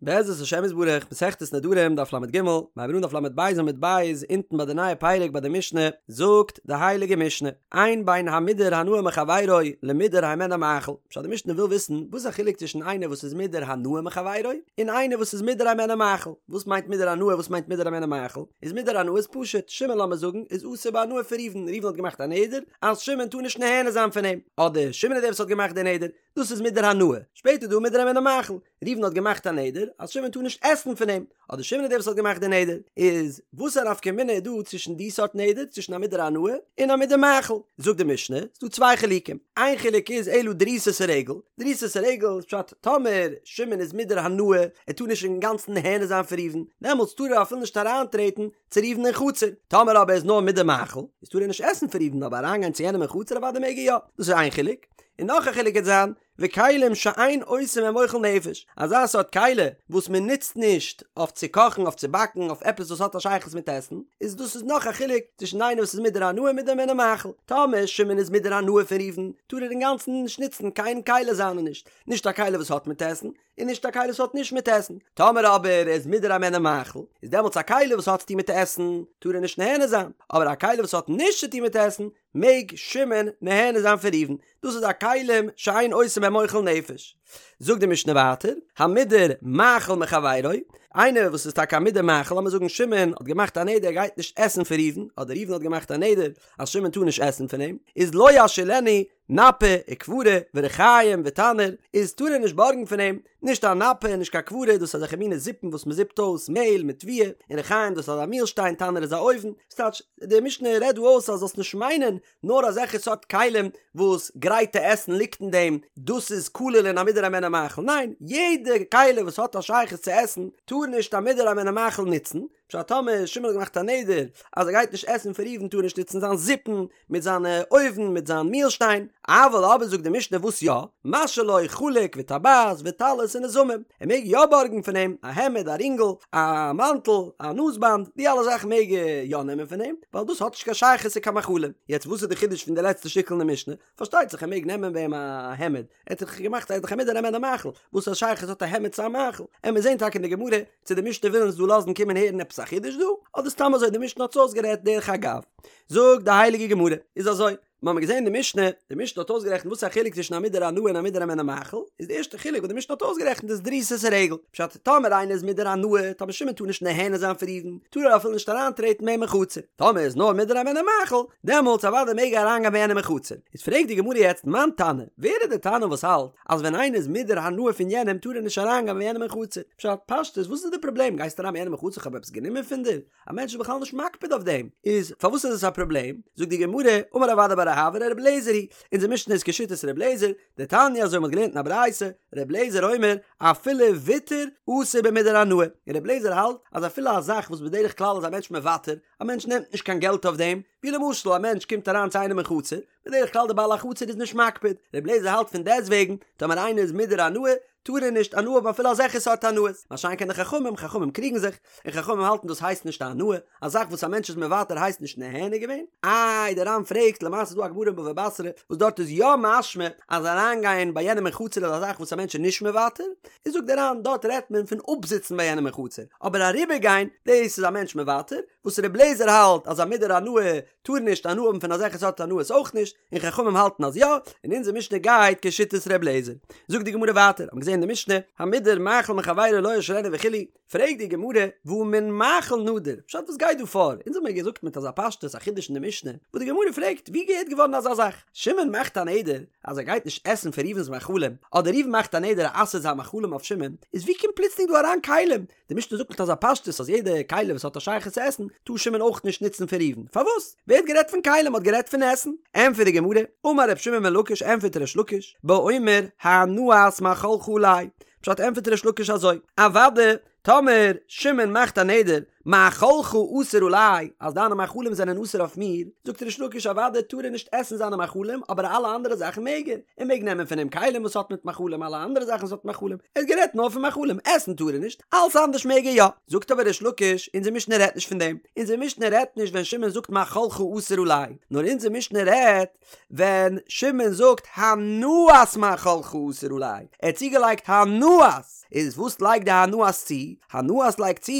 בעזרת השם יתברך, מסכת נדרים, דף לג, מיר הייבן אן דף לב עמוד ב', אונטן ביי די נייע פרק ביי די משנה, זאגט די הייליגע משנה, אין בין המודר הנאה מחבירו למודר הימנו מאכל, פשט די משנה וויל וויסן וואס איז א חילוק צווישן איינער וואס איז מודר הנאה מחבירו, און איינער וואס איז מודר הימנו מאכל, וואס מיינט מודר הנאה וואס מיינט מודר הימנו מאכל, איז מודר הנאה איז פשוט, שמעון לאמיר זאגן איז אסור בהנאה פון ראובן, ראובן האט געמאכט א נדר אז שמעון טאר נישט נהנה זיין פון אים, אדער שמעון איז דער וואס האט געמאכט די נדר, דאס איז מודר הנאה, שפעטער איז דא מודר הימנו מאכל, ראובן האט געמאכט א נדר אז שמעון טאר נישט עסן פון אים, אדער שמעון איז דער וואס האט געמאכט די נדר, איז וואס א נפקא מינה איז דא צווישן די סארט נדר, צווישן א מודר הנאה און א מודר מאכל? זאגט די משנה, ס'איז דא צוויי חילוקים, איין חילוק איז אלא דריסת הרגל, דריסת הרגל איז פשט טאמער שמעון איז מודר הנאה, ער טאר נישט אינגאנצן נהנה זיין פון ראובן, דעמאלטס טאר ער אפילו נישט אריינטרעטן צו ראובן אין חצר, טאמער אבער איז נאר מודר מאכל, איז טאר ער נישט עסן פון ראובן אבער אריינגיין צו יענעם אין חצר אוודאי מעג ער יא, דאס איז איין חילוק, און נאך א חילוק וועט זיין, וכלים שאין עושים בהם אוכל נפש, אזא סארט כלי וואס מען נוצט נישט אויף צו קאכן, אויף צו באקן, אויף עפעס וואס האט א שייכות מיט עסן, איז דאס איז נאך א חילוק צווישן איינער וואס איז מודר הנאה און מודר הימנו מאכל. טאמער שמעון איז מודר הנאה פון ראובן, טאר ער אינגאנצן נישט נוצן קיין כלי זיינע נישט, נישט א כלי וואס האט מיט עסן, און נישט א כלי וואס האט נישט מיט עסן. טאמער אבער ער איז מודר הימנו מאכל, איז דעמאלטס א כלי וואס האט צו טון מיט עסן, טאר ער נישט נהנה זיין, אבער א כלי וואס האט נישט צו טון מיט עסן, מעג שמעון נהנה זיין פון ראובן, דאס איז א כלים שאין עושים בהם אוכל נפש. זאגט די משנה ווייטער, המודר מאכל מחבירו, איינער וואס איז טאקע א מודר מאכל, לאמיר זאגן שמעון האט געמאכט א נדר ער גייט נישט עסן פון ראובן, אדער ראובן האט געמאכט א נדר אז שמעון טאר נישט עסן פון אים, איז לא ישאילנו נפה וכברה ורחיים ותנור, איז טאר ער נישט בארגן פון אים, נישט א נפה און נישט קיין כברה, דאס איז אזעלכע מינע זיפן וואס מען זיפט אויס מעהל מיט תבואה, און רחיים דאס איז אזא מילשטיין, תנור איז א אויוון, ס'טייטש, די משנה רעדט דא אויס אז זאלסט נישט מיינען נאר אזעלכע סארט כלים וואס גרייטע עסן ליגט אין דעם, דאס איז כולל אין א מודר הימנו מאכל, ניין, יעדע כלי וואס האט א שייכות צו עסן טאר נישט א מודר הימנו מאכל נוצן, פשט טאמער שמעון האט געמאכט א נדר אז ער גייט נישט עסן פון ראובן טאר ער נישט נוצן זיין זיפן מיט זיינע אויוון מיט זיין מילשטיין, אבל אבער זאגט די משנה וואס יא, משאיל לו חלוק וטבעת וטלית ונזמים, ער מעג יא בארגן פון אים א העמד א רינגל א מאנטל א נאז באנד די אלע זאכן מעג ער יא נעמען פון אים ווייל דאס האט נישט קיין שייכות צו קיין מאכלים, יעצט וואס איז די חידוש פון די לעצטע שטיקל אין די משנה? פארשטייט זיך ער מעג נעמען ביי אים א העמד, ער האט דאך געמאכט ער איז דאך א מודר הימנו מאכל, וואס א שייכות האט א העמד צו א מאכל? עמיר זעהן טאקע אין די גמרא צו די משנה וויל אונז דא לאזן קומען הערן עפעס א חידוש דא, אדער סתם אזוי די משנה האט עס אויסגערעדט דרך אגב. זאגט די הייליגע גמרא, איז אזוי, מיר האבן געזען די משנה, די משנה האט אויסגערעכנט וואס איז א חילוק צווישן א מודר הנאה און א מודר הימנו מאכל, איז די ערשטע חילוק וואס די משנה האט אויסגערעכנט איז דריסת הרגל, פשט, טאמער איינער איז מודר הנאה, טאמער שמעון טאר נישט נהנה זיין פון ראובן, טאר ער אפילו נישט אריינטרעטן ביי אים אין חצר, טאמער איז נאר מודר הימנו מאכל, דעמאלטס אוודאי מעג ער אריינגיין ביי יענעם אין חצר. איז פרעגט די גמרא יעצט מאן תנא, ווער איז די תנא וואס האלט אז ווען איינער איז מודר הנאה פון יענעם טאר ער נישט אריינגיין ביי יענעם אין חצר? פשט, פשטות, וואס איז די פראבלעם, גייסט אריין ביי יענעם אין חצר כ'האב עפעס גענומען פון דיר? א מענטש איז בכלל נישט מקפיד אויף דעם, איז פארוואס איז עס א פראבלעם? זאגט די גמרא, אמר רב אדא בר אהבה ר' אליעזר היא, אונזער משנה איז כשיטת ר' אליעזר, דתניא אזוי מ'האט געלערנט אין א ברייתא, ר' אליעזר אומר, אפילו ויתור אסור במודר הנאה, און ר' אליעזר האלט אז אפילו א זאך וואס בדרך כלל איז א מענטש מוותר, א מענטש נעמט נישט קיין געלט אויף דעם, ווי למשל א מענטש קומט אריין צו איינעם אין חצר, בדרך כלל די בעל החצר איז נישט מקפיד, ר' אליעזר האלט פון דעסטוועגן, טאמער איינער איז מודר הנאה, טאר ער נישט הנאה האבן אפילו אזעלכע סארט הנאות, מה שאין כן די חכמים, חכמים קריגן זיך, און חכמים האלטן דאס הייסט נישט א הנאה, א זאך וואס א מענטש איז מוותר הייסט נישט נהנה געווען, איי דער ר"ן פרעגט, למעשה איז דא א גמרא אין בבא בתרא וואס דארט איז יא משמע אז אריינגיין ביי יענעם אין חצר איז א זאך וואס א מענטש איז נישט מוותר, איז זאגט דער ר"ן דארט רעדט מען פון אפזיצן ביי יענעם אין חצר, אבער אריבערגיין דאס איז א מענטש מוותר, וואס ר' אליעזר האלט אז א מודר הנאה טאר נישט הנאה האבן פון אזעלכע סארט הנאות אויך נישט, און חכמים האלטן אז יא, און אונזער משנה גייט כשיטת ר' אליעזר. זאגט די גמרא ווייטער, האט מען געזען אין די משנה, המודר מאכל מחבירו לא ישאילנו וכו', פרעגט די גמרא, והא מן מאכל נדר, פשט וואס גייט דא פאר? אונז האבן מיר געזאגט מיט אזא פשטות א חידוש אין די משנה, וואס די גמרא פרעגט, ווי געהערט געווארן אזא זאך? שמעון מאכט א נדר אז ער גייט נישט עסן פון ראובן'ס מאכלים, אדער ראובן מאכט א נדר ער אסר'ט זיין מאכלים אויף שמעון, איז ווי קומט פלוצלינג דא אריין כלים? די משנה זאגט מיט אזא פשטות אז יעדע כלי וואס האט א שייכות צו עסן טאר שמעון אויך נישט נוצן פון ראובן, פארוואס? ווער האט גערעדט פון כלים? מ'האט גערעדט פון עסן. ענטפערט די גמרא, אמר ר' שמעון בן לקיש ענטפערט ריש לקיש, באומר הנאת מאכלך עלי, פשט ענטפערט ריש לקיש אזוי, אוודאי טאמער שמעון מאכט א נדר מאכלך אסור עלי אז דיינע מאכלים זענען אסור אויף מיר, זאגט ריש לקיש אוודאי טאר ער נישט עסן זיינע מאכלים אבער אלע אנדערע זאכן מעג ער, ער מעג נעמען פון אים כלים וואס האט מיט מאכלים אלע אנדערע זאכן וואס האט מאכלים, ער האט גערעדט נאר פון מאכלים, עסן טאר ער נישט, אלס אנדערש מעג ער יא. זאגט אבער ריש לקיש, אונזער משנה רעדט נישט פון דעם, אונזער משנה רעדט נישט ווען שמעון זאגט מאכלך אסור עלי, נאר אונזער משנה רעדט ווען שמעון זאגט הנאת מאכלך אסור עלי, ער האט צוגעלייגט הנאת. איז וואס לייגט די הנאת צו? הנאת לייגט צו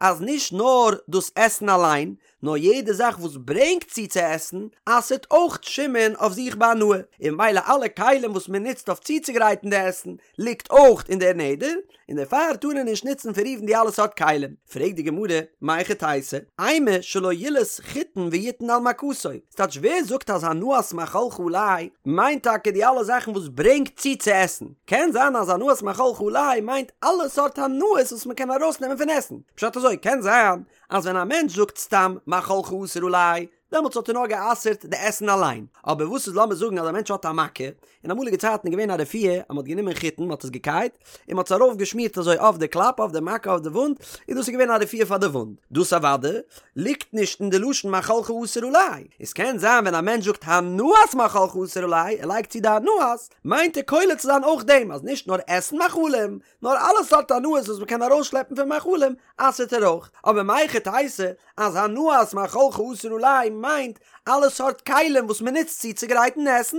אז נישט נאר דאס עסן אליין, נאר יעדע זאך וואס ברענגט צו צו עסן, אסר'ט אויך שמעון אויף זיך בהנאה, און ממילא אלע כלים וואס מען נוצט אויף צוצוגרייטן די עסן, ליגט אויך אין דער נדר, און דערפאר טאר ער נישט נוצן פון ראובן די אלע סארט כלים. פרעגט די גמרא, מהיכי תיתי, אימא שלא ילעוס חיטין ויתן על מכתו, ס'טייטש ווער זאגט אז הנאת מאכלך עלי מיינט טאקע די אלע זאכן וואס ברענגט צו צו עסן? קען זיין אז הנאת מאכלך עלי מיינט אלע סארט הנאות וואס מ'קען ארויסנעמען פון עסן. פשט אזוי, קען זיין אז ווען א מענטש זאגט סתם מאכלך אסור עלי, דעמאלטס האט ער נאר גע'אסר'ט די עסן אליין. אבער וואס איז לאמיר זאגן אז א מענטש האט א מכה, אין אמאליגע צייטן איז געווען א רפואה אז מ'האט גענומען חיטן, מ'האט עס געקייט, און מ'האט עס ארויף געשמירט אזוי אויף די קלאפ, אויף די מכה, אויף די וואונד, און דאס איז געווען א רפואה פאר די וואונד. דאס אוודאי ליגט נישט אין די לשון מאכלך אסור עלי. עס קען זיין ווען א מענטש זאגט הנאת מאכלך אסור עלי, ער לייגט צו די הנאת, מיינט ער כולל צו זיין אויך דעם אז נישט נאר עסן מאכלים, נאר אלע סארט הנאות וואס מ'קען ארויסשלעפן פון מאכלים, אסר'ט ער אויך. אבער מהיכי תיתי אז הנאת מאכלך אסור עלי מיינט אלע סארט כלים וואס מ'נוצט צו צוגרייטן עסן?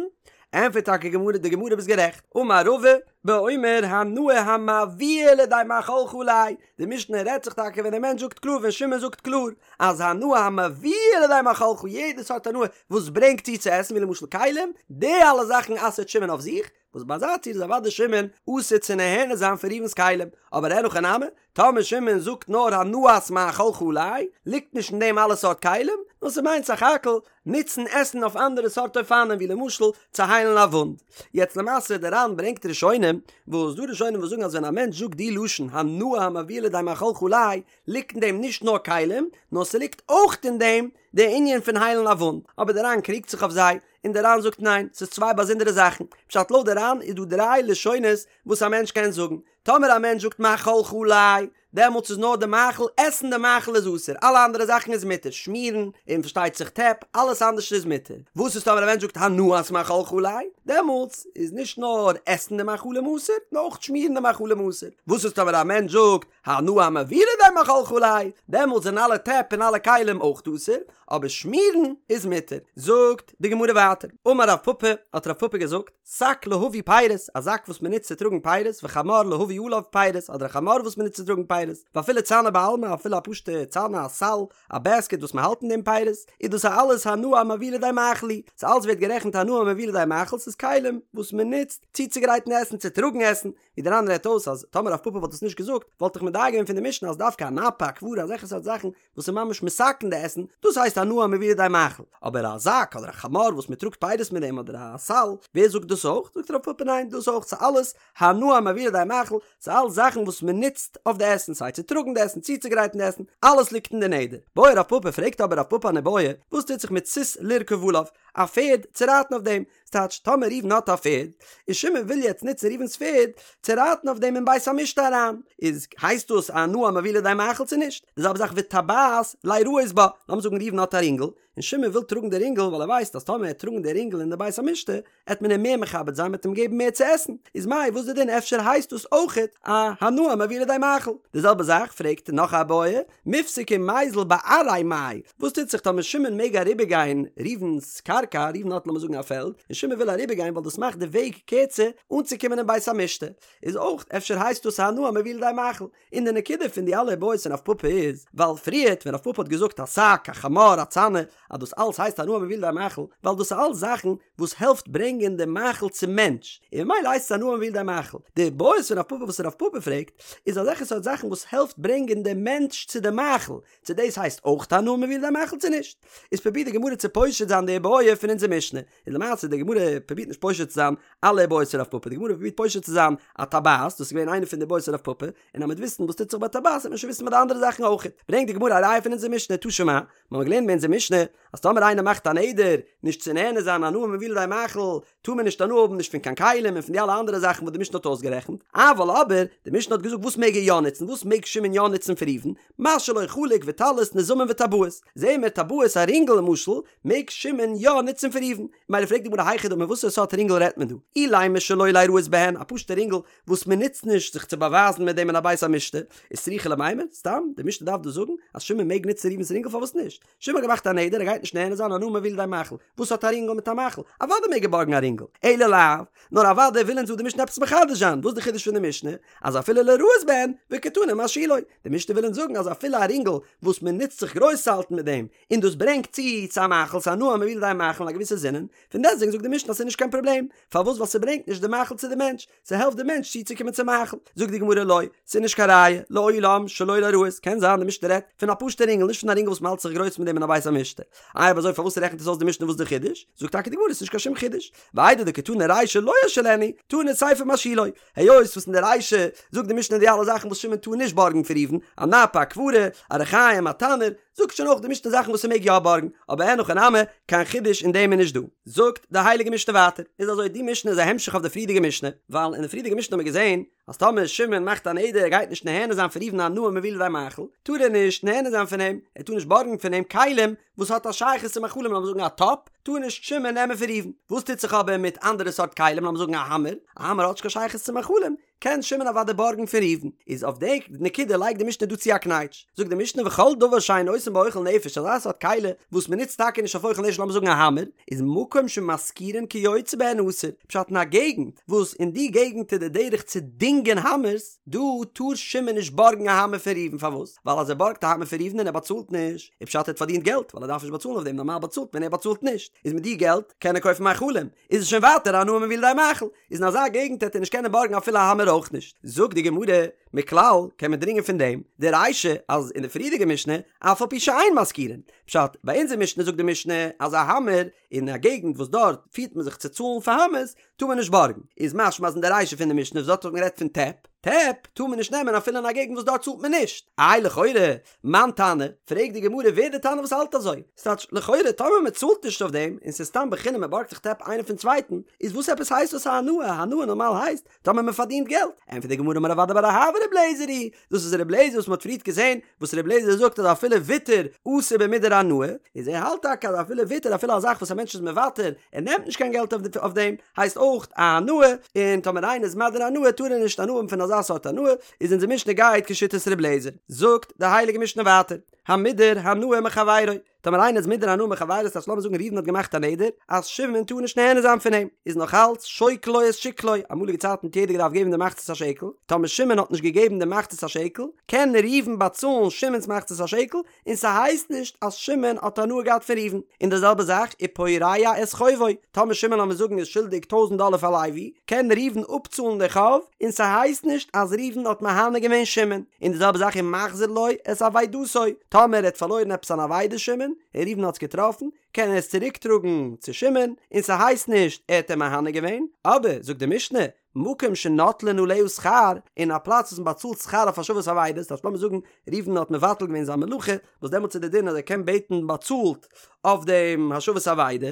ענטפערט טאקע גמרא די גמרא ביסט גערעכט, אמר רבא, באומר הנאה המביאה לידי מאכלך עלי, די משנה רעדט זיך טאקע ווען דער מענטש זאגט קלאר ווען שמעון זאגט קלאר אז הנאה המביאה לידי מאכלך יעדע סארט הנאה וואס ברענגט צו צו עסן ווי למשל כלים, די אלע זאכן אסר'ט שמעון אויף זיך, וואס ביי אזא ציור איז אוודאי שמעון אסור צו נהנה זיין פון ראובן'ס כלים, אבער אין הכי נמי, טאמער שמעון זאגט נאר הנאת מאכלך עלי, ליגט נישט אין דעם אלע סארט כלים, נאר ס'מיינט סך הכל נוצן עסן אויף אנדערע סארט אופנים ווי למשל צו היילן א וואונד. יעצט למעשה די ר"ן ברענגט ראשונים, וואס דא ראשונים וואס זאגן אז ווען א מענטש זאגט די לשון הנאה המביאה לידי מאכלך עלי, ליגט אין דעם נישט נאר כלים, נאר ס'ליגט אויך אין דעם די ענין פון היילן א וואונד, אבער די ר"ן קריגט זיך אויף זיי, און די ר"ן זאגט ניין, ס'איז צוויי באזונדערע זאכן, פשט לויט די ר"ן איז דא דריי לשונות וואס א מענטש קען זאגן, טאמער א מענטש זאגט מאכלך עלי, דעמאלטס איז נאר די מאכל, עסן די מאכל איז אסור, אלע אנדערע זאכן איז מותר, שמירן, און פארשטייט זיך טעפ, אלעס אנדערש איז מותר. וואס איז טאמער א מענטש זאגט הנאת מאכלך עלי, דעמאלטס איז נישט נאר עסן די מאכלים אסור, נאר אויך שמירן די מאכלים אסור. וואס איז טאמער א מענטש זאגט הנאה המביאה לידי מאכלך עלי, דעמאלטס זענען אלע טעפ און אלע כלים אויך אסור, אבער שמירן איז מותר. זאגט די גמרא ווייטער, אמר רב פפא, האט רב פפא געזאגט, שק להביא פירות, א זאק וואס מען נוצט צו טראגן פירות, וחמור להביא עליו פירות, אדער א חמור וואס מען נוצט צו טראגן פירות, ואפילו צנא בעלמא, אפילו א פשוטע צנא, א סל, א בעסקעט וואס מען האלט אין דעם פירות, איז דאס אלעס הנאה המביאה לידי מאכל היא, ס'אלץ ווערט גערעכנט הנאה המביאה לידי מאכל, ס'איז כלים וואס מען נוצט צוצוגרייטן עסן, צו טראגן עסן, ווי דער ר"ן רעדט אויס אז טאמער רב פפא וואלט עס נישט געזאגט וואלט איך מדייק געווען פון די משנה אז דווקא א נפה א כברה אזעלכע סארט זאכן וואס איז ממש מתקן די עסן דאס הייסט הנאה המביאה לידי מאכל אבער א זאק אדער א חמור וואס מען טראגט פירות מיט דעם אדער א סל ווער זאגט דאס אויך זאגט רב פפא ניין דאס אויך ס'איז אלעס הנאה המביאה לידי מאכל ס'איז אלעס זאכן וואס מען נוצט אויף די עסן סיי צו טראגן די עסן צוצוגרייטן די עסן אלעס ליגט אין די נדר בעי רב פפא פרעגט אבער רב פפא אן איבעיא וואס טוט זיך מיט סוס לרכוב עליו א פערד צו רייטן אויף דעם ס'טייטש, טאמער ראובן האט א פערד, און שמעון וויל יעצט נוצן ראובן'ס פערד צו רייטן אויף דעם אין בית המשתה אריין, איז הייסט דאס א הנאה המביאה לידי מאכל צו נישט? די זעלבע זאך וטבעת ליראות בה, לאמיר זאגן ראובן האט א רינגל, און שמעון וויל טראגן די רינגל ווייל ער ווייסט אז טאמער ער וועט טראגן די רינגל אין די בית המשתה, עט מען אים מער מכבד זיין מ'עט אים געבן מער צו עסן, איז מאי וואס די דין אפשר הייסט דאס אויכעט א הנאה המביאה לידי מאכל? די זעלבע זאך פרעגט נאך א בעיא, מיפסק ומיזל בארעיה מאי, וואס טוט זיך טאמער שמעון מעג אריבערגיין ראובן'ס קרקע, ראובן האט לאמיר זאגן א פעלד, און שמעון וויל אריבערגיין ווייל דאס מאכט די וועג קערצער אנצוקומען אין בית המשתה, איז אויך אפשר הייסט דאס א הנאה המביאה לידי מאכל, און די נקודה פון די אלע איבעיות פון רב פפא איז, ווייל פריערט ווען רב פפא האט געזאגט א שק, א חמור, א צנא, אז דאס אלס הייסט הנאה המביאה לידי מאכל, ווייל דאס איז אלס זאכן וואס העלפט ברענגען די מאכל צום מענטש, און ממילא הייסט עס הנאה המביאה לידי מאכל. די בעיות פון רב פפא וואס רב פפא פרעגט, איז אזעלכע סארט זאכן וואס העלפט ברענגען די מענטש צו די מאכל, צו דאס הייסט אויך הנאה המביאה לידי מאכל צו נישט. איז פרובירט די גמרא צו פושט זיין די בעיה פון אונזער משנה, און למעשה די גמרא פרובירט נישט פושט צו זיין אלע בעיות פון רב פפא, די גמרא פרובירט פושט צו זיין א טבעת, דאס איז געווען איינע פון די בעיות פון רב פפא, און אז מ'וועט וויסן וואס טוט זיך ביי טבעת וועט מען שוין וויסן ביי די אנדערע זאכן אויך. ברענגט די גמרא א ראיה פון אונזער משנה, תא שמע, מיר האבן געלערנט אין אונזער משנה, אז טאמער איינער מאכט א נדר נישט צו נהנה זיין הנאה המביאה לידי מאכל, טאר מען נישט הנאה האבן נישט פון קיין כלים און פון די אלע אנדערע זאכן וואס די משנה האט אויסגערעכנט, אבל אבער, די משנה האט געזאגט וואס מעג ער יא נוצן, וואס. וואס מעג שמעון יא נוצן פון ראובן? מה שלא חלוק וטלית נזמים וטבעות. זעהן מיר טבעות א רינגל למשל מעג שמעון יא נוצן פון ראובן. מילא פרעגט די גמרא היכי דמי וואסערע סארט רינגל רעדט מען דא? אילימא שלא ליראות בהן א פשוטע רינגל וואס מען נוצט נישט זיך צו באווייזן מיט דעם אין א בית המשתה, איז צריכא למימר, סתם, די משנה דארף דא זאגן אז שמעון מעג נוצן ראובן'ס רינגל פארוואס נישט? שמעון האט געמאכט א נדר ער גייט נישט נהנה זיין הנאה המביאה לידי מאכל, וואס האט א רינגל מיט א מאכל? אוודאי מעג ער בארגן א רינגל, אלא לאו, נאר אוודאי וויל אונז דא די משנה עפעס מחדש זיין, וואס איז די חידוש פון די משנה? אז אפילו ליראות בהן, וקתני משאילו, די משנה וויל אונז זאגן אז אפילו א רינגל וואס מען נוצט זיך גרויס צו האלטן מיט דעם, און דאס ברענגט צו צו א מאכל, ס'איז הנאה המביאה לידי מאכל אין א געוויסע זינען, פון דעסטוועגן זאגט די משנה אז ס'איז נישט קיין פראבלעם, פארוואס ווייל ס'ברענגט נישט די מאכל צו די מענטש, ס'העלפט די מענטש צוצוקומען צום מאכל. זאגט די גמרא לא, ס'איז נישט קיין ראיה, לעולם שלא ליראות, קען זיין די משנה רעדט פון א פשוטע רינגל נישט פון א רינגל וואס מ'האלט זיך גרויס מיט דעם אין א בית המשתה. איי אויב אזוי פארוואס רעכנט עס אויס די משנה וואס די חידוש? זאגט טאקע די גמרא ס'איז נישט קיין שום חידוש, ואיידי דקתני רישא לא ישאילנו, תנא סיפא משאילו, היות וואס אין די רישא זאגט די משנה די אלע זאכן וואס שמעון טאר נישט בארגן פון ראובן, א נפה, א כברה, א רחיים, א תנור, זאגט שוין אויך די משנה זאכן וואס ער מעג יא בארגן, אבער אין הכי נמי, קיין חידוש אין דעם איז נישט דא. זאגט די הייליגע משנה ווייטער, איז אזוי די משנה איז א המשך אויף די פריערדיגע משנה, ווייל אין די פריערדיגע משנה האט מען געזען אז טאמער שמעון מאכט א נדר ער גייט נישט נהנה זיין פון ראובן הנאה המביאה לידי מאכל, טאר ער נישט נהנה זיין פון אים, ער טאר נישט בארגן פון אים כלים וואס האט א שייכות צו מאכלים לאמיר זאגן א טאפ, טאר נישט שמעון נעמען פון ראובן. וואס טוט זיך אבער מיט אנדערע סארט כלים לאמיר זאגן א האמער, א האמער האט נישט קיין שייכות צו מאכלים, קען שמעון אוודאי בארגן פון ראובן, איז אויף די נקודה לייגט די משנה דא צו א קנייטש, זאגט די משנה וכל דבר שאין עושין בו אוכל נפש אזא סארט כלי וואס מען נוצט טאקע נישט אויף אוכל נפש לאמיר זאגן א האמער, איז מקום שמשכירין כיוצא בהן אסור, פשט אין א געגנט וואס אין די געגנט איז די דרך צו דינגען האמערס, דא טאר שמעון נישט בארגן א האמער פון ראובן פארוואס? ווייל אז ער בארגט א האמער פון ראובן און ער באצאלט נישט, איז פשט ער האט פארדינט געלט ווייל ער דארף נישט באצאלן אויף דעם נארמאל באצאלט מען ער באצאלט נישט, איז מיט די געלט קען ער קויפן מאכלים, איז עס שוין ווייטער הנאה המביאה לידי מאכל, איז אין אזא געגנט העט ער נישט קענען בארגן אפילו א האמער אויך נישט. זאגט די גמרא, מכלל קען מען דרינגען פון דעם די רישא אז אין די פריערדיגע משנה אף על פי שאין משכירין, פשט, ביי אונזער משנה זאגט די משנה אז א האמער אין א געגנט וואס דארט פירט מען זיך צו צאלן פאר האמערס טאר מען נישט בארגן, איז משמע אז אין די רישא פון די משנה וואס דארט האט מען גערעדט פון טעפ, טעפ טאר מען נישט נעמען אפילו אין א געגנט וואס דארט צאלט מען נישט, איי לכאורה מאן תנא, פרעגט די גמרא ווער די תנא וואס האלט אזוי? ס'טייטש לכאורה טאמער מען צאלט נישט אויף דעם און ס'איז סתם בחינם מען בארגט זיך טעפ איינער פון צווייטן, איז וואס עפעס הייסט דאס א הנאה? הנאה נארמאל הייסט טאמער מען פארדינט געלט. ענטפערט די גמרא אמר רב אדא בר אהבה ר' אליעזר היא, דאס איז ר' אליעזר וואס מען האט פריערט געזען וואס ר' אליעזר זאגט אז אפילו ויתור אסור במודר הנאה, איז ער האלט טאקע אז אפילו ויתור אפילו א זאך וואס א מענטש איז מוותר ער נעמט נישט קיין געלט אויף דעם הייסט אויך א הנאה, און טאמער איינער איז מדיר הנאה טאר ער נישט הנאה האבן פון אזא סארט הנאה, איז אונזער משנה גייט כשיטת ר' אליעזר. זאגט די הייליגע משנה ווייטער, המודר הנאה מחבירו, טאמער איינער איז מודר הנאה מחבירו ס'טייטש לאמיר זאגן ראובן האט געמאכט א נדר אז שמעון טאר נישט נהנה זיין פון אים, איז נאך אלץ שוקל לו את שקלו, אמאליגע צייטן האט יעדער געדארפט געבן די מחצית השקל, טאמער שמעון האט נישט געגעבן די מחצית השקל, קען ראובן באצאלן שמעון'ס מחצית השקל, און ס'הייסט נישט אז שמעון האט הנאה געהאט פון ראובן, און די זעלבע זאך ופורע את חובו, טאמער שמעון לאמיר זאגן איז שולדיג טויזנט דאלער פאר לוי, קען ראובן אפצאלן די חוב, און ס'הייסט נישט אז ראובן האט מהנה געווען שמעון, און די זעלבע זאך ומחזיר לו את אבידתו, טאמער ער האט פארלוירן עפעס אן אבידה שמעון, און ראובן האט עס געטראפן, קען ער עס צוריק טראגן צו שמעון, און ס'הייסט נישט ער האט אים מהנה געווען, אבער זאגט די משנה, מקום שנוטלין עליה שכר, אין א פלאץ וואס מען באצאלט שכר אויף השבת אבידות, דאס לאמיר זאגן ראובן האט מבטל געווען זיין מלאכה, וואס דעמאלטס איז די דין אז ער קען בעטן באצאלט אויף דעם השבת אבידה,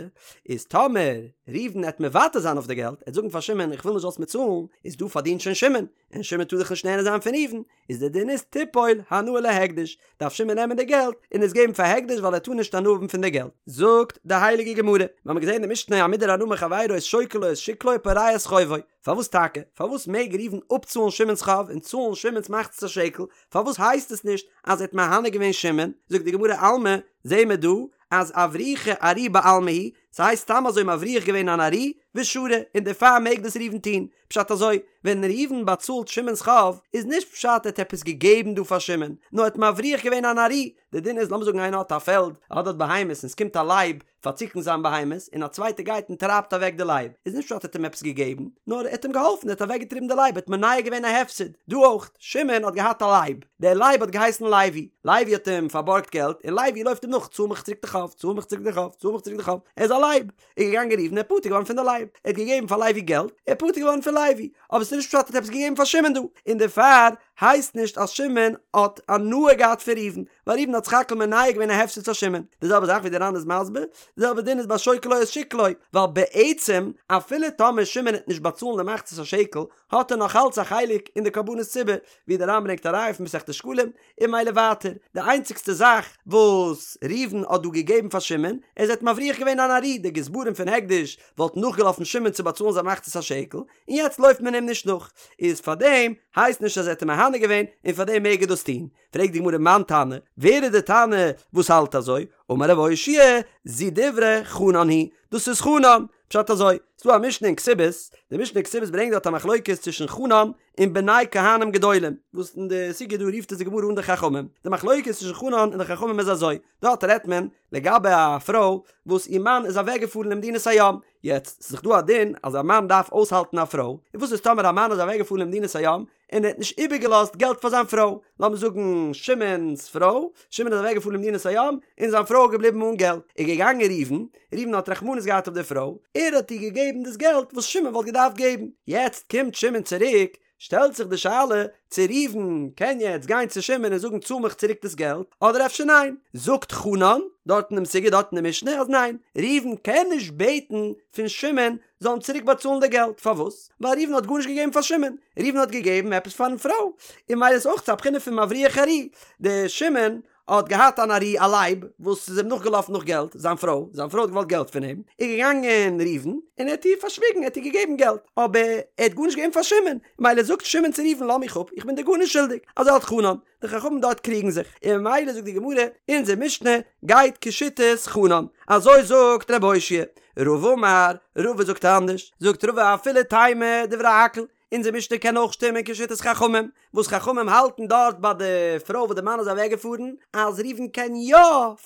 איז טאמער ראובן עט מוותר זיין אויף די געלט, עט זאגן פאר שמעון איך וויל נישט זאלסט מיר צאלן, איז דא פארדינט שוין שמעון, און שמעון טאר דאך נישט נהנה זיין פון ראובן, איז די דין איז תיפול הנאה להקדש, דארף שמעון נעמען די געלט און עס געבן פאר הקדש ווייל ער טאר נישט הנאה האבן פון די געלט. זאגט די הייליגע גמרא, מיר האבן געזען די משנה המודר הנאה מחבירו איז שוקל לו את שקלו ופורע את חובו, פארוואס טאקע? פארוואס מעג ראובן אפצאלן שמעון'ס חוב און צאלן שמעון'ס מחצית השקל? פארוואס הייסט עס נישט אז ער האט מהנה געווען שמעון? זאגט די גמרא אלמא, זעהן מיר דא אז אברוחי ארי בעלמא הוא, ס'הייסט סתם אזוי מבריח געווען אן ארי, ושרי, און דערפאר מעג דאס ראובן טון. פשט אזוי, ווען ראובן באצאלט שמעון'ס חוב, איז נישט פשט ער האט עפעס געגעבן דא פאר שמעון, נאר ער האט מבריח געווען אן ארי, די דין איז לאמיר זאגן איינער האט א פעלד, ער האט דארט בהמות און ס'קומט א לייב פארצוקן זיין בהמות, און א צווייטער גייט און טרייבט אוועק די לייב, איז נישט פשט ער האט אים עפעס געגעבן, נאר ער האט אים געהאלפן, ער האט אוועקגעטריבן די לייב, ער האט מונע געווען א הפסד. דא אויך, שמעון האט געהאט א לייב, דער לייב האט געהייסן לוי, לוי האט אים פארבארגט געלט, און לוי לויפט אים נאך, צאל מיך צוריק די חוב, צאל מיך צוריק די חוב, צאל מיך צוריק די חוב, ער איז א לייב. איז געגאנגען ראובן ער איז פטור געווארן פון די לייב, ער האט געגעבן פאר לוי געלט, ער איז פטור געווארן פון לוי, אבער ס'איז נישט פשט ער האט עפעס געגעבן פאר שמעון דא, און דערפאר הייסט נישט אז שמעון האט הנאה געהאט פון ראובן, ווייל ראובן האט סך הכל מונע געווען א הפסד פאר שמעון. די זעלבע זאך ווי די ר"ן איז מסביר, די זעלבע דין איז ביי שוקל לו את שקלו, ווייל בעצם אפילו טאמער שמעון העט נישט באצאלן די מחצית השקל, האט ער נאך אלץ א חלק אין די קרבנות ציבור, ווי די ר"ן ברענגט א ראיה פון מסכת שקלים, און ממילא ווייטער, די איינציגסטע זאך וואס ראובן האט דא געגעבן פאר שמעון, איז ער האט מבריח געווען אן ארי, די גזברים פון הקדש וואלטן נאכגעלאפן שמעון צו באצאלן זיין מחצית השקל, און יעצט לויפט מען אים נישט נאך, איז פארדעם הייסט נישט אז ער האט אים מהנה געווען, און פארדעם מעג ער דאס טון. פרעגט די גמרא מאן תנא, ווער איז די תנא וואס האלט אזוי? אמר רב אושעיא, זו דברי חנן היא, דאס איז חנן, פשט אזוי, ס'דא א משנה אין כתובות, די משנה אין כתובות ברענגט דארט א מחלוקת צווישן חנן און בני כהנים גדולים, וואס אין די סוגיא דא רופט עס די גמרא אן די חכמים, די מחלוקת צווישן חנן און די חכמים איז אזוי, דארט רעדט מען לגבי א פרוי וואס איר מאן איז אוועק געפארן למדינת הים, יעצט ס'איז דאך דא א דין אז א מאן דארף אויסהאלטן א פרוי, און וואס איז טאמער א מאן איז אוועק געפארן למדינת הים און ער האט נישט איבערגעלאזט געלט פאר זיין פרוי, לאמיר זאגן שמעון'ס פרוי, שמעון איז אוועק געפארן למדינת הים און זיין פרוי איז געבליבן אן געלט, איז געגאנגען ראובן, ראובן האט רחמנות געהאט אויף די פרוי, ער האט איר געגעבן דאס געלט וואס שמעון וואלט געדארפט געבן, יעצט קומט שמעון צוריק, שטעלט זיך די שאלה צו ראובן קען יעצט גיין צו שמעון און זאגן צאל מיך צוריק דאס געלט, אדער אפשר ניין, זאגט חנן, דארט אין דעם סוגיא דארט אין די משנה אז ניין, ראובן קען נישט בעטן פון שמעון זאל אים צוריק באצאלן די געלט, פארוואס? ווייל ראובן האט גארנישט געגעבן פאר שמעון, ראובן האט געגעבן עפעס פארן פרוי, און ממילא איז אויך א בחינה פון מבריח ארי, די שמעון האט געהאט אן ארי א לייב וואס איז אים נאכגעלאפן נאך געלט, זיין פרוי, זיין פרוי האט געוואלט געלט פון אים, איז געגאנגען ראובן און ער האט איר פארשוויגן, ער האט איר געגעבן געלט, אבער ער האט גארנישט געגעבן פאר שמעון, ממילא זאגט שמעון צו ראובן לאז מיך אפ, איך בין דיר גארנישט שולדיג, אזוי האלט חנן, די חכמים דארט קריגן זיך, און ממילא זאגט די גמרא, אונזער משנה גייט כשיטת חנן, אזוי זאגט רב אושעיא, רבא אמר, רבא זאגט אנדערש, זאגט רבא אפילו תימא דברי הכל, אונזער משנה קען אויך שטימען כשיטת חכמים, וואס חכמים האלטן דארט ביי די פרוי וואס די מאן איז אוועק געפארן, אז ראובן קען יא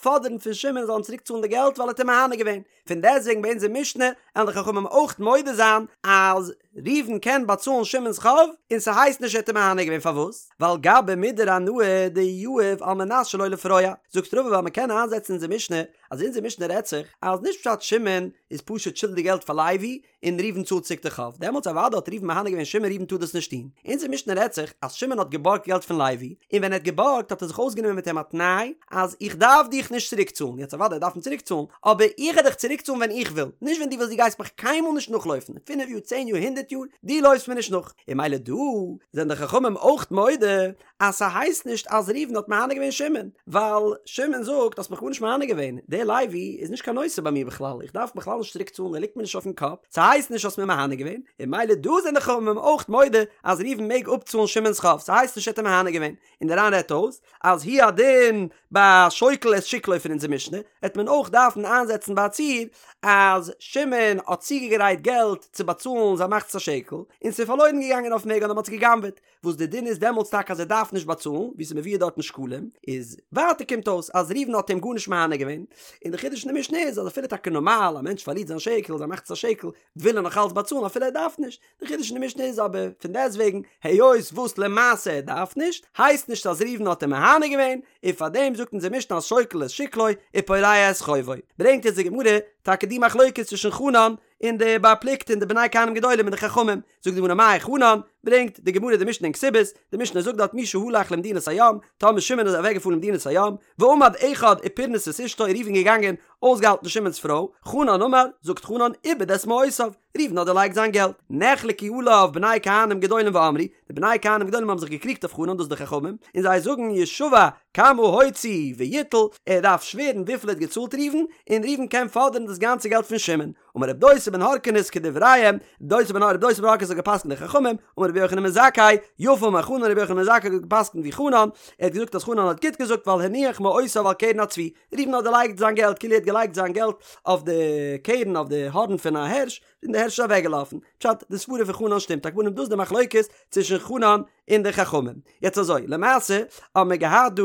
פאדערן פון שמעון זאל אים צוריק צאלן די געלט ווייל ער האט אים מהנה געווען, פון דעסטוועגן ביי אונזער משנה וועלן די חכמים אויך מודה זיין אז ראובן קען באצאלן שמעון'ס חוב און ס'הייסט נישט ער האט אים מהנה געווען פארוואס? ווייל גבי מודר הנאה דיהיב על מנת שלא לפרוע זאגט רבא ווייל מ'קען איינזעצן אונזער משנה אז אונזער משנה רעדט זיך אז נישט פשט שמעון איז פשוט שולדיג געלט פאר לוי און ראובן צאלט צוריק די חוב, דעמאלטס אוודאי האט ראובן מהנה געווען שמעון ראובן טאר דאס נישט טון. אונזער משנה רעדט זיך אז שמעון האט געבארגט געלט פון לוי, און ווען ער האט געבארגט האט ער זיך אויסגענומען מיט אים א תנאי אז איך דארף דיך נישט צוריק צאלן, יעצט אוודאי ער דארף אים צוריק צאלן, אבער איך וועל דיך צוריק צאלן ווען איך וויל, נישט ווען דו ווילסט דו גייסט מיך קיינמאל נישט נאכלויפן, פינף יאר צען יאר הונדערט יאר, דו לויפסט מיר נישט נאך. און ממילא דא זענען די חכמים אויך מודה אז ס'הייסט נישט אז ראובן האט מהנה געווען שמעון, ווייל שמעון זאגט האסט מיך גארנישט מהנה געווען, דער לוי איז נישט קיין נושא ביי מיר בכלל, איך דארף בכלל נישט צוריק צאלן ער ליגט מיר נישט אויפן קאפ, ס'הייסט נישט האסט מיר מהנה געווען, און ממילא דא זענען די חכמים אויך מודה אז ראובן מעג אפצאלן שמעון'ס חוב, ס'הייסט נישט ער האט אים מהנה געווען, און דער ר"ן רעדט אויס אז הוא הדין ביי שוקל את שקלו פון אונזער משנה, העט מען אויך דארפן איינזעצן ביי א ציור אז שמעון האט צוגעגרייט געלט צו באצאלן זיין מחצית השקל, און ס'איז פארלוירן געגאנגען אויפן וועג אדער מ'האט עס גע'גנב'עט, וואס די דין איז דעמאלטס טאקע אז ער דארף נישט באצאלן, ווי ס'איז מבואר דארט אין שקלים, איז ווייטער קומט אויס אז ראובן האט אים גארנישט מהנה געווען, און די חידוש אין די משנה איז אז אפילו טאקע נארמאל א מענטש פארלירט זיין שקל, זיין מחצית השקל, וויל ער נאך אלץ באצאלן אפילו ער דארף נישט, די חידוש אין די משנה איז אבער פון דעסטוועגן היות וואס למעשה ער דארף נישט, הייסט נישט אז ראובן האט אים מהנה געווען, און פארדעם זאגט אונזער משנה אז שוקל את שקלו ופורע את חובו. ברענגט אונז די גמרא טאקע די מחלוקת צווישן חנן און די בר פלוגתא און די בני כהנים גדולים און די חכמים, זאגט די גמרא מאי חנן, ברענגט די גמרא די משנה אין כתובות, די משנה זאגט דארט מי שהלך למדינת הים, טאמער שמעון איז אוועק געפארן למדינת הים, ועמד אחד ופרנס את אשתו ראובן געגאנגען אויסגעהאלטן שמעון'ס פרוי, חנן אמר, זאגט חנן, איבד את מעותיו, ראובן האט דערלייגט זיין געלט, נחלקו עליו בני כהנים גדולים ואמרו, די בני כהנים גדולים האבן זיך געקריגט אויף חנן דאס די חכמים, און זיי זאגן ישבע כמה הוציא ויטול, ער דארף שווערן וויפיל ער האט געצאלט ראובן, און ראובן קען פאדערן דאס גאנצע געלט פון שמעון. אמר רב דוסא בן הרכינס כדבריהם, דוסא בן רב דוסא בן הרכינס האט געפסקנט די חכמים, אמר רבי יוחנן בן זכאי, יפה אמר חנן רבי יוחנן בן זכאי האט געפסקנט ווי חנן, ער האט געזאגט אז חנן האט גוט געזאגט ווייל הניח מעותיו על קרן הצבי, ראובן האט דערלייגט זיין געלט כאילו ער האט געלייגט זיין געלט אויף די קרן אויף די הארן פון א הערש, און די הערש איז אוועקגעלאפן. פשט, די סברה פון חנן שטימט, על כל פנים דאס איז די מחלוקת צווישן חנן און די חכמים. יעצט אזוי, למעשה האבן מיר געהאט דא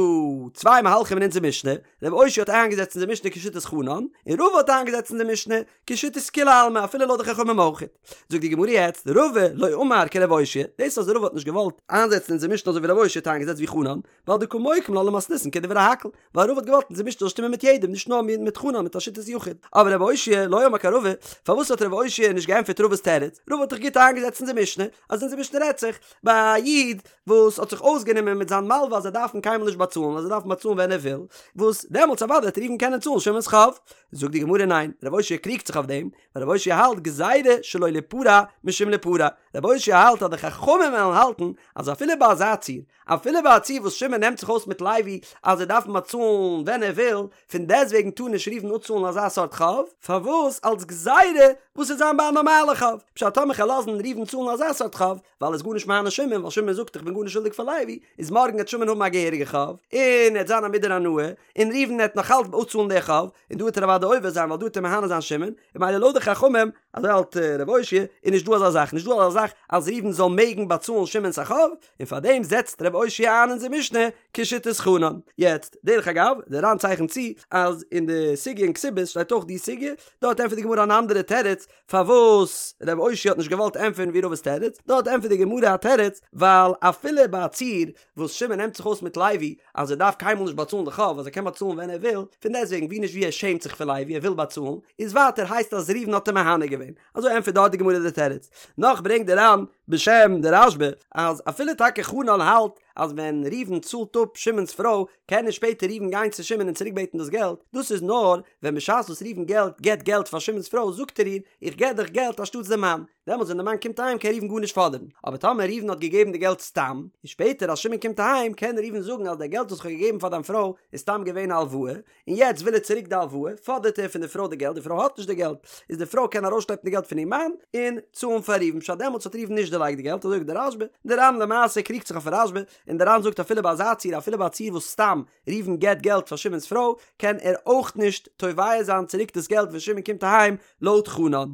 צוויי מהלכים אין אונזער משנה, רב אושעיא האט איינגעזעצט אונזער משנה כשיטת חנן, און רבא האט איינגעזעצט אונזער משנה כשיטת כולי עלמא אפילו לויט די חכמים אויכעט. זאגט די גמרא יעצט, רבא לא אמר כרב אושעיא, דאס אז רבא האט נישט געוואלט איינזעצן אונזער משנה אזוי ווי רב אושעיא האט איינגעזעצט ווי חנן, ווייל דקא מוקים לה למתניתין כדברי הכל, ווייל רבא האט געוואלט אונזער משנה זאל שטימען מיט יעדעם נישט נאר מיט חנן מיט א שיטת יחיד. אבער רב אושעיא לא אמר כרבא, פארוואס האט רב אושעיא. אושעיא נישט געענטפערט רבא'ס תירוץ, רבא האט דאך גוט איינגעזעצט אונזער משנה, אז אונזער משנה רעדט זיך ביי א איד וואס האט זיך אויסגענומען מיט זיין מלווה אז ער דארף אים קיינמאל נישט באצאלן, אז ער דארף אים באצאלן ווען ער וויל, וואס דעמאלטס אוודאי וועט ראובן קענען צאלן שמעון'ס חוב. זאגט די גמרא ניין, רב אושעיא קריגט זיך אויף דעם, ווייל רב אושעיא האלט גזירה שלא ליפרע משום ליפרע, רב אושעיא האלט אז די חכמים וועלן האלטן אז אפילו ביי אזא ציור, אפילו ביי א ציור וואס שמעון נעמט זיך אויס מיט לוי אז ער דארף אים באצאלן ווען ער וויל, פון דעסטוועגן טאר נישט ראובן אפצאלן אזא סארט חוב, פארוואס? אלס גזירה וואס וועט זיין ביי א נארמאלע חוב, פשט טאמער כ'על לאזן ראובן צאלן אזא סארט חוב, ווייל ער איז גארנישט מהנה שמעון, ווייל שמעון זאגט איך בין גארנישט שולדיג פאר לוי, איז מארגן העט שמעון האבן א געהעריגע חוב, און ער העט זיין א מודר הנאה, און ראובן העט נאך אלץ אפצאלן די חוב, און דא העט ער אוודאי עובר זיין ווייל דא העט ער מהנה זיין שמעון, און ממילא לויט די חכמים, אזוי האלט רב אושעיא, איז נישט דא אזא זאך, נישט דא אזא זאך אז ראובן זאל מעגן באצאלן שמעון'ס א חוב, און פארדעם זעצט רב אושעיא איין אונזער משנה כשיטת חנן. יעצט, דרך אגב, דער ר"ן צייכנט צו אז אין די סוגיא אין כתובות שטייט אויך די סוגיא, דארט ענטפערט די גמרא אן אנדערע תירוץ פארוואס רב אושעיא האט נישט געוואלט ענטפערן ווי רבא'ס תירוץ, דארט ענטפערט די גמרא א תירוץ, ווייל אפילו ביי א ציור וואס שמעון נעמט זיך אויס מיט לוי אז ער דארף קיינמאל נישט באצאלן די חוב אז ער קען באצאלן ווען ער וויל, פון דעסטוועגן ווי נישט ווי ער שעמט זיך פון לוי ער וויל באצאלן, איז ווייטער הייסט אז ראובן האט אים מהנה געווען, אזוי ענטפערט דארט די גמרא די תירוץ. נאך ברענגט די ר"ן בשם די רשב"א אז אפילו טאקע חנן האלט אז ווען ראובן צאלט אפ שמעון'ס פרוי קען נישט שפעטער ראובן גיין צו שמעון און צוריק בעטן דאס געלט, דאס איז נאר ווען בשעת וואס ראובן געלט געבט געלט פאר שמעון'ס פרוי זאגט ער איר איך געב דיך געלט אנשטאטס די מאן, דעמאלטס ווען די מאן קומט אהיים קען ראובן גארנישט פאדערן, אבער טאמער ראובן האט געגעבן די געלט סתם, און שפעטער אז שמעון קומט אהיים קען ראובן זאגן אז די געלט וואס איך האב געגעבן פאר דיין פרוי איז סתם געווען א הלוואה, און יעצט וויל ער צוריק די הלוואה, פאדערט ער פון די פרוי די געלט, די פרוי האט נישט די געלט, איז די פרוי קען ארויסשלעפן די געלט פון איר מאן, און צאלן פאר ראובן, פשט דעמאלטס האט ראובן נישט דערלייגט די געלט, אזוי זאגט די רשב"א, די ר"ן למעשה קריגט זיך אויפן רשב"א, און די ר"ן זאגט אפילו ביי אזא ציור, אפילו ביי א ציור וואס סתם ראובן געבט געלט פאר שמעון'ס פרוי, קען ער אויך נישט תובע זיין צוריק דאס געלט ווען שמעון קומט אהיים, לויט חנן.